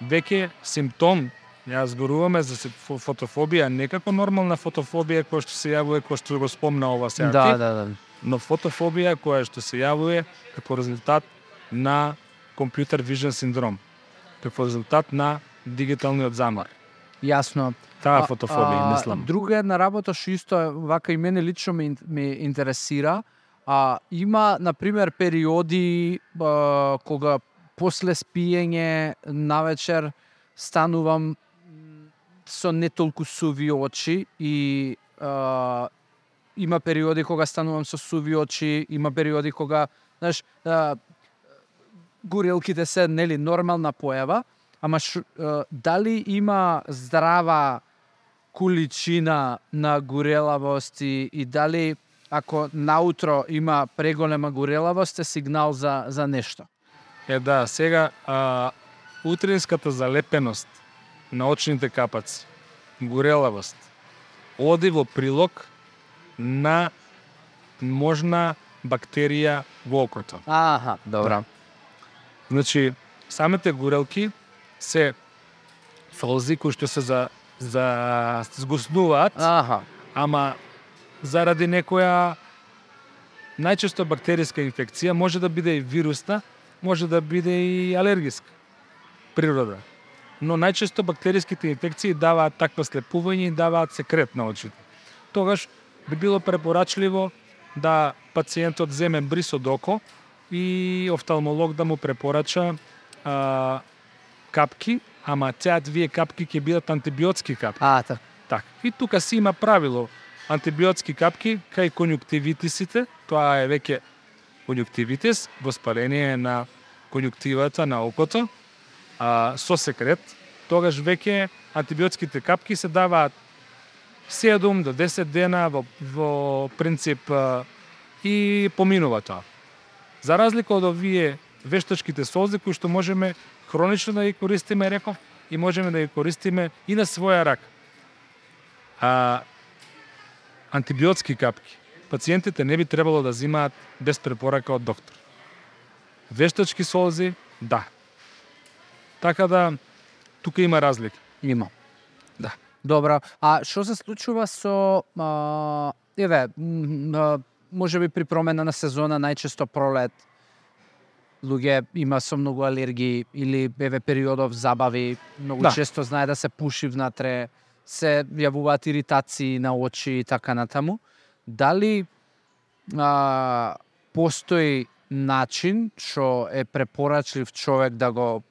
веќе симптом. Ја зборуваме за фотофобија, не како нормална фотофобија која што се јавува, која што го спомна ова сега.
Да.
Но фотофобија која што се јавува како резултат на компјутер вижн синдром, како резултат на дигиталниот замор.
Јасно.
Таа фотофобија, мислам.
Друга една работа што исто вака и мене лично ме интересира, има, например, периоди кога после спиење навечер станувам со не толку суви очи и има периоди кога станувам со суви очи, има периоди кога, знаеш, горелките се нели нормална појава, ама дали има здрава количина на горелавост и дали ако наутро има преголема горелавост е сигнал за нешто?
Да, сега утринската залепеност на очните капаци, горелавост, оди во прилог на можна бактерија во окото.
Аха, добра.
Значи, самите горелки се солзи кои што се згуснуваат, ама заради некоја најчесто бактериска инфекција, може да биде и вирусна, може да биде и алергиска природа. Но најчесто бактериските инфекции даваат такво слепување и даваат секрет на очите. Тогаш би било препорачливо да пациентот земе бриз од око и офталмолог да му препорача капки, ама тие капки ќе бидат антибиотски капки.
Так.
И тука си има правило. Антибиотски капки кај конјуктивитисите, тоа е веќе конјуктивитис, воспаление на конјуктивата на окото, со секрет, тогаш веќе антибиотските капки се даваат 7 до 10 дена во принцип и поминува тоа. За разлика од овие вештачките солзи кои што можеме хронично да ги користиме, реков, и можеме да ги користиме и на своја рака. Антибиотски капки пациентите не би требало да земаат без препорака од доктор. Вештачки солзи, да. Така да, тука има разлика.
Има.
Да.
Добра. А што се случува со може би при промена на сезона, најчесто пролет, луѓе има со многу алергии или периодов забави, многу често знае да се пуши внатре, се јавуваат иритации на очи и така натаму. Дали постои начин што е препорачлив човек да го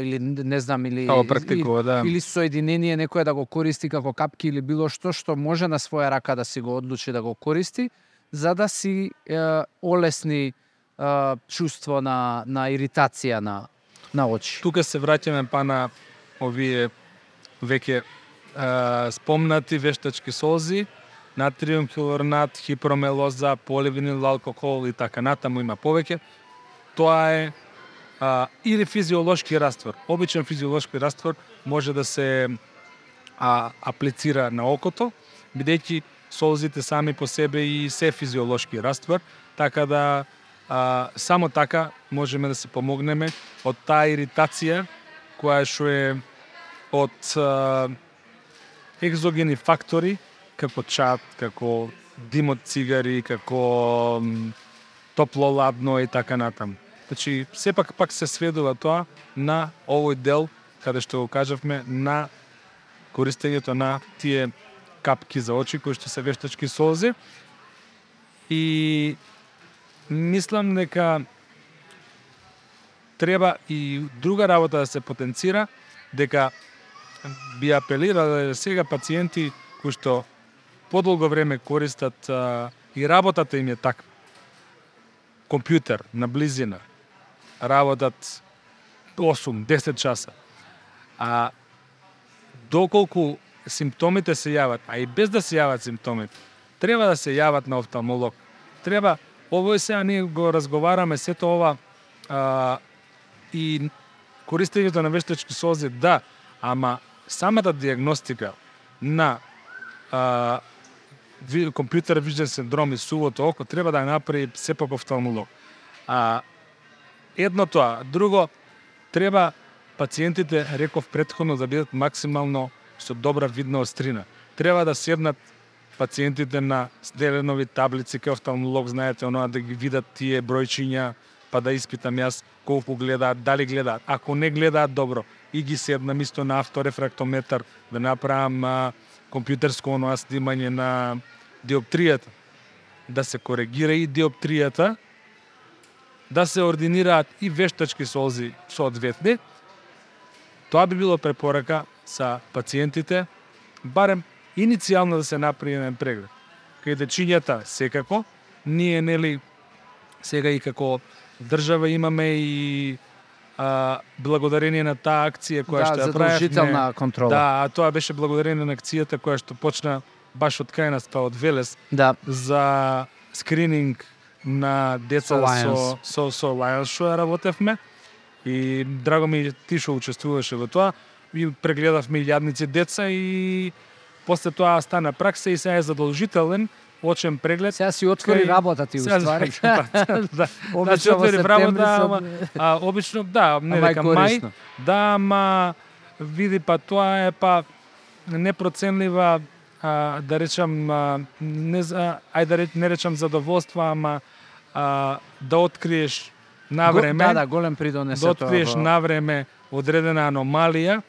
или не знам или
практикува,
или соединение некој да го користи како капки или било што може на своја рака да си го одлучи да го користи за да си олесни чувство на иритација на очи.
Тука се враќаме па на овие веќе спомнати вештачки солзи, натриум хилорнат, хипромелоза, поливинил алкохол и така натаму има повеќе. Тоа е или физиолошки раствор. Обичен физиолошки раствор може да се аплицира на окото, бидејќи солзите сами по себе и се физиолошки раствор, така да само така можеме да се помогнеме од таа иритација која што е од екзогени фактори, како чад, како дим од цигари, како топло-ладно и така натаму. Значи, сепак пак се сведува тоа на овој дел, каде што го кажавме, на користењето на тие капки за очи, кои што се вештачки солзи. И мислам дека треба и друга работа да се потенцира, дека би апелирале сега пациенти кои што подолго време користат и работата им е таква. Компјутер на близина, работат 8-10 часа. Доколку симптомите се јават, а и без да се јават симптомите, треба да се јават на офталмолог. Треба, ово сега ние го разговараме сето ова и користењето на вештачки солзи, да, ама самата диагностика на компјутер вижден синдром и сувото око треба да направи сепак офталмолог. Едно тоа. Друго, треба пациентите, реков претходно, да бидат максимално со добра видна острина. Треба да седнат пациентите на Деленови таблици кај офталмолог, знаете, оноа да ги видат тие бројчиња, па да испитам јас колку гледаат, дали гледаат. Ако не гледаат добро, и ги седнам исто на авторефрактометар да направам компјутерско оноа снимање на диоптријата, да се коригира и диоптријата, да се ординираат и вештачки солзи соодветни. Тоа би било препорака за пациентите, барем иницијално да се направи еден преглед. Кај дечињата секако, ние нели сега и како држава имаме и благодарение на таа акција која што ја правевме.
Задолжителна контрола.
Да, тоа беше благодарение на акцијата која што почна баш од кај нас, од Велес, за скрининг на деца со Lions што ја работевме. И драго ми ти што учествуваше во тоа. И прегледавме илјадници деца и после тоа стана пракса и сега е задолжителен очен преглед.
Сега си отвори работа ти уствари.
Да. Значи отвори работа, обично, да, не дека мај, да, ама види па тоа е па непроценлива, да речам, не речам задоволство, ама да откриеш на време.
Голем придонес
да откриеш на време одредена аномалија,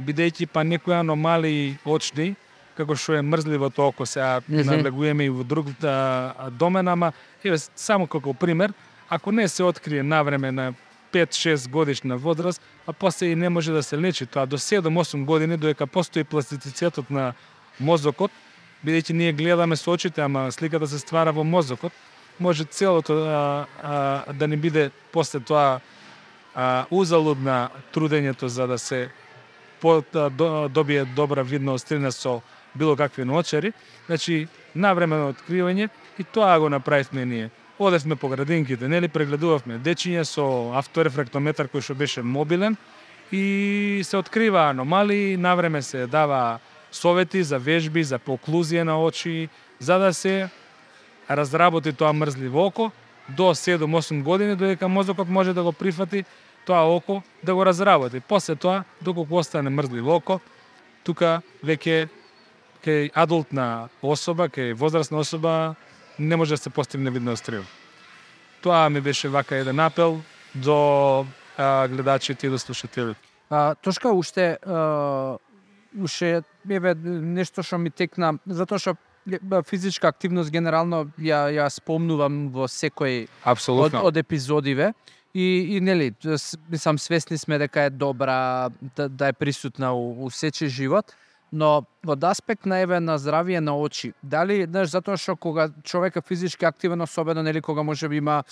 бидејќи па некои аномалии очни, како што е мрзливото око, сега надлегуваме и во друг домен, ама еве само како пример, ако не се открие навреме на 5-6 годишна возраст, а после и не може да се лечи тоа до 7-8 години, додека постои пластицитетот на мозокот, бидејќи ние гледаме со очите, ама сликата се ствара во мозокот, може целото да не биде после тоа узалудна трудењето за да се добие добра видна острина со било какви ноочари, значи навремено откривање и тоа го направивме ние. Одевме по градинките, нели прегледувавме дечиња со авторефрактометар кој што беше мобилен и се открива аномалии, навреме се дава совети за вежби, за оклузија на очи, за да се разработи тоа мрзливо око до 7-8 години, додека мозокот може да го прифати тоа око да го разработи. После тоа, доколку остане мрзливо око, тука веќе кај адултна особа, кај возрастна особа, не може да се постигне видна острина. Тоа ми беше вака еден апел до гледачите и до слушателите.
Тошка, уште нешто што ми текна, затоа што физичка активност генерално ја спомнувам во секој од епизодиве и нели сам свесни сме дека е добра да е присутна у сечи живот, но од аспект на здравие на очи, дали затоа што кога човек е физички активен, особено нели кога можеби има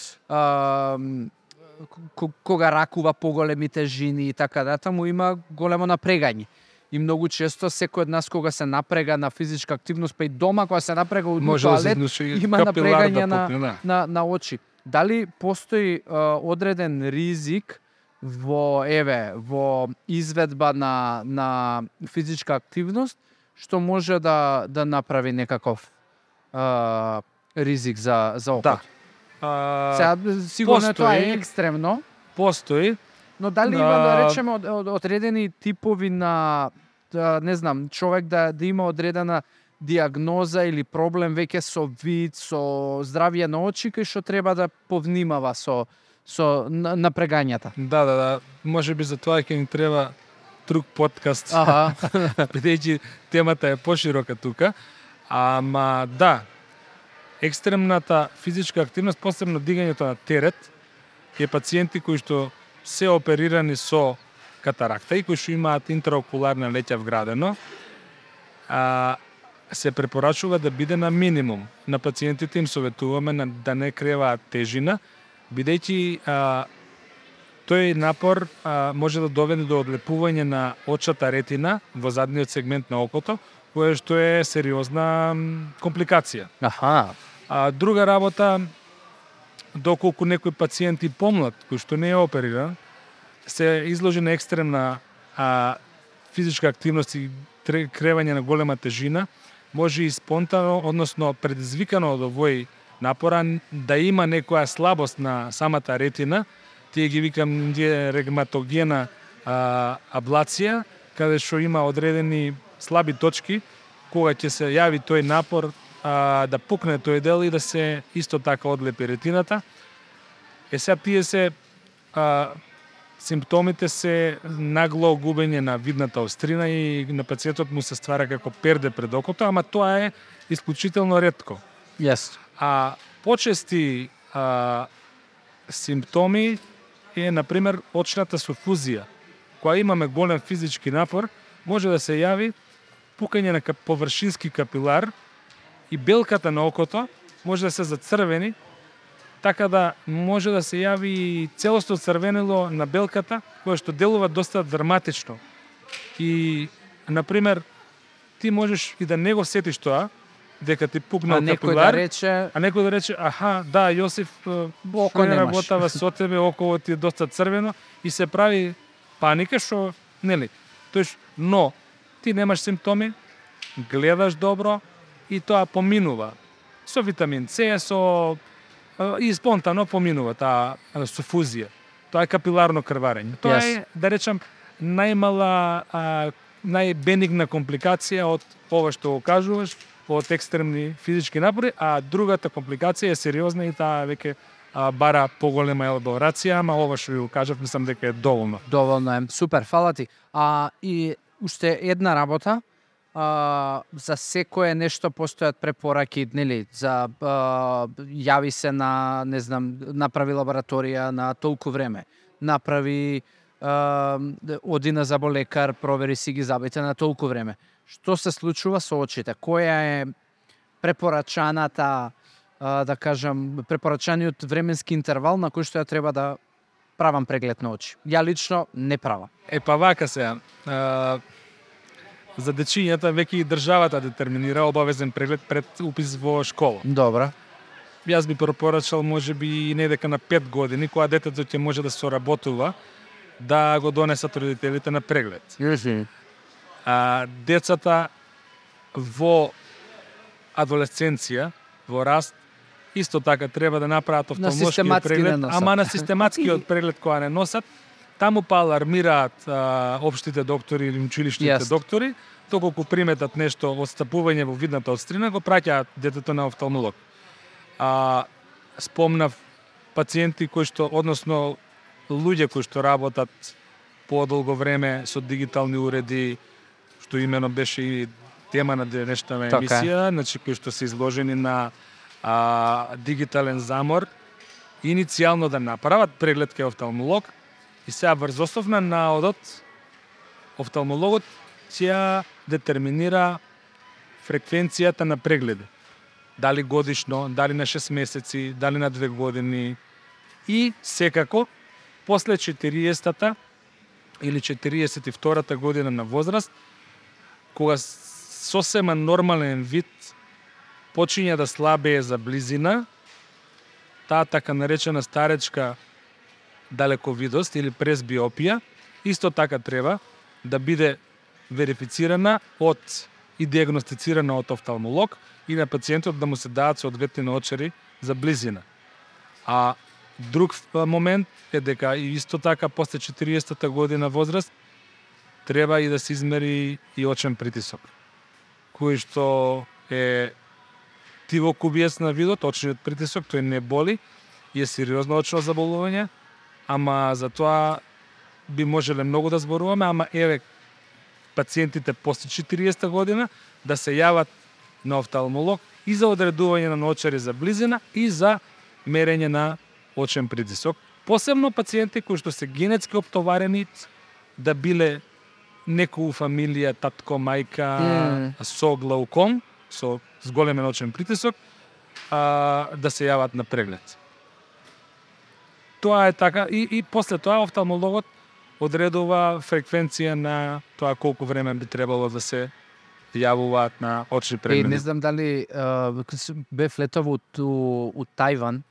кога ракува поголеми тежини и така му има големо напрегање. И многу често секој од нас кога се напрега на физичка активност, па и дома кога се напрега у тоалет, има напрегање на очи. Дали постои одреден ризик во изведба на физичка активност што може да направи некаков ризик за окото? Сега, сигурно тоа е екстремно.
Постои.
Но дали има, да речеме, одредени типови на, не знам, човек да има одредена диагноза или проблем веќе со вид, со здравје на очи, кај што треба да повнимава со напрегањата?
Да. Може би за тоа ќе ни треба друг подкаст. Бидејќи темата е поширока тука. Ама да, екстремната физичка активност, посебно дигањето на терет, е пациенти кои што се оперирани со катаракта и кои што имаат интраокуларна леќа вградено, се препорачува да биде на минимум. На пациентите им советуваме да не креваат тежина, бидејќи тој напор може да доведе до одлепување на очната ретина во задниот сегмент на окото, кое што е сериозна компликација. Друга работа, доколку некој пациент и помлад, кој што не е опериран, се изложи на екстремна физичка активност и кревање на голема тежина, може и спонтано, односно предизвикано од овој напора, да има некоја слабост на самата ретина, тие ги викам регматогена аблација, каде што има одредени слаби точки, кога ќе се јави тој напор, да пукне тој дел и да се исто така одлепи ретината. Сега тие се симптомите се нагло губење на видната острина и на пациентот му се ствара како перде пред окото, ама тоа е исклучително ретко. Почести симптоми е, например, очната суфузија. Кога имаме голем физички напор, може да се јави пукање на површински капилар и белката на окото може да се зацрвени, така да може да се јави целосно црвенило на белката, кое што делува доста драматично. И, например, ти можеш и да не го сетиш тоа, дека ти пукнал капилар, а некој да рече, да, Јосиф, кој работава со тебе, около ти е доста црвено, и се прави паника, што, нели, но ти немаш симптоми, гледаш добро и тоа поминува. Со витамин С, и спонтано поминува таа суфузија. Тоа е капиларно крварење. Тоа е, да речам, најбенигна компликација од ова што го кажуваш, од екстремни физички напори, а другата компликација е сериозна и таа веќе бара поголема елаборација, ама ова што ви го кажав, мислам дека е доволно.
Доволно е. Супер, фала ти. И уште една работа, за секое нешто постојат препораки, нели, за јави се на, не знам, направи лабораторија на толку време, направи оди на заболекар, провери си ги забите на толку време. Што се случува со очите? Која е препорачаната, да кажам, препорачаниот временски интервал на кој што ја треба да правам преглед на очи? Ја лично не правам.
Вака се. За дечињата веќе и државата детерминира обавезен преглед пред упис во школа.
Добра.
Јас би препорачал можеби недека на 5 години, кога детето ќе може да соработува, да го донесат родителите на преглед. Децата во адолесценција, во раст, исто така треба да направат офталмолошкиот преглед, ама на систематскиот преглед која не носат. Таму па алармираат општите доктори или училишните доктори, доколку приметат нешто отстапување во видната острина, го праќаат детето на офталмолог. Спомнав пациенти кои што, односно луѓе кои што работат подолго време со дигитални уреди, што имено беше и тема на денешната емисија, значи кои што се изложени на дигитален замор, иницијално да направат преглед кај офталмолог и сега врз основ на наодот офталмологот ќе детерминира фреквенцијата на прегледи. Дали годишно, дали на 6 месеци, дали на 2 години и секако после 40-та или 42-та година на возраст, кога сосема нормален вид почиња да слабее за близина, таа така наречена старечка далековидост или пресбиопија, исто така треба да биде верифицирана и диагностицирана од офталмолог и на пациентот да му се дадат соодветни наочари за близина. А друг момент е дека и исто така после 40-та година возраст треба и да се измери и очен притисок, кој што е тивокубиец на видот, очниот притисок, тој не боли и е сериозно очно заболување, ама за тоа би можеле многу да зборуваме, ама еве пациентите после 40 година да се јават на офталмолог и за одредување на наочари за близина и за мерење на очен притисок. Посебно пациенти кои што се генетски оптоварени да биле некој фамилија, татко, мајка со глауком, со зголемен очен притисок, да се јават на преглед. Тоа е така и после тоа офталмологот одредува фреквенција на тоа колку време би требало да се јавуваат на очни прегледи.
Не знам дали бев летов у Тајван.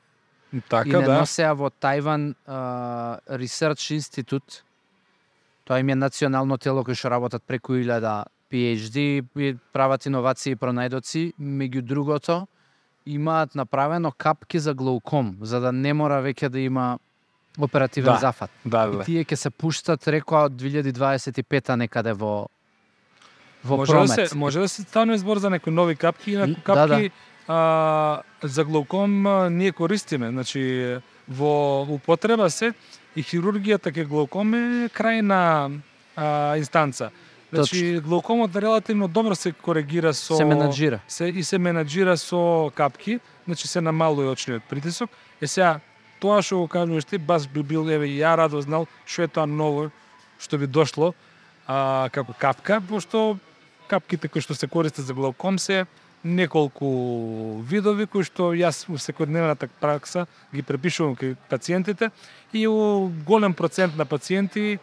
Така,
и не носеа во Тајван Research Institute. Тоа им е национално тело кој што работат преку 1000 PhD, прават иновации и пронајдоци. Меѓу другото, имаат направено капки за глауком, за да не мора веќе да има оперативен зафат. И тие ќе се пуштат, рекоа, од 2025-та некаде во промет.
Може да се стане збор за некои нови капки, инаку капки за глауком ние користиме. Значи, во употреба се и хирургијата ке глауком е крајна инстанца. Значи, глаукомот релативно добро се коригира со...
Се менаџира.
Се менаџира со капки, значи се намалува очниот притисок. Сега, тоа што го кажуваш ти, баш би бил, еве, ја радо знал што е тоа ново, што би дошло како капка, пошто капките кои што се користат за глауком се неколку видови кои што јас во секојдневната пракса ги препишувам кај пациентите и у голем процент на пациенти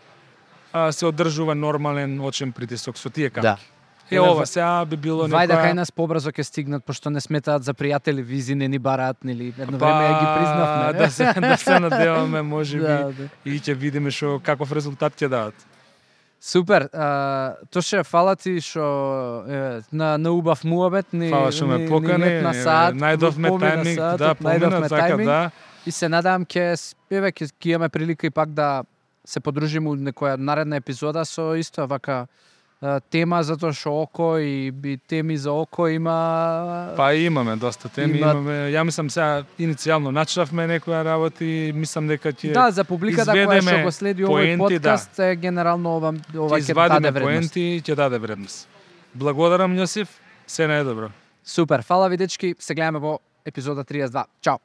се одржува нормален очен притисок со тие капки. Ова сега би било
некоја... Вајде кај нас побрзо ќе стигнат, пошто не сметаат за пријатели, визи не ни бараат, нели? Едно време ја ги признавме.
Да се надеваме, можеби, и ќе видиме што каков резултат ќе дадат.
Супер. Тоше, фала ти што на убав муабет ни
ме покани, најдовме тајминг, помина така, да.
И се надевам ќе имаме прилика и пак да се подружиме у некоја наредна епизода со исто вака тема, затоа што око и теми за око има...
Па имаме доста теми, имаме. Ја мислам сега иницијално начнавме некоја работи, мислам дека ќе
за публиката која што го следи овој подкаст, генерално ова ќе даде вредност.
Поенти, ќе даде вредност. Благодарам, Јосиф, се најдобро.
Супер, фала ви дечки, се гледаме во епизода 32. Чао.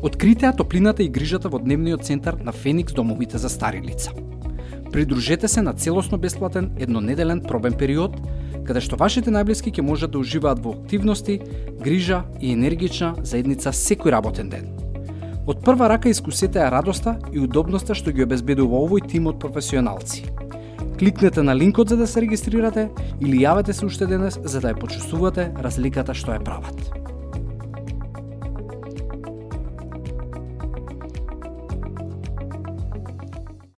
Откритеа топлината и грижата во дневниот центар на Феникс домовите за стари лица. Придружете се на целосно бесплатен еднонеделен пробен период, каде што вашите најблиски ќе можат да уживаат во активности, грижа и енергична заедница секој работен ден. Од прва рака искусете ја радоста и удобноста што ги обезбедува овој тим од професионалци. Кликнете на линкот за да се регистрирате или јавете се уште денес за да ја почувствувате разликата што ја прават.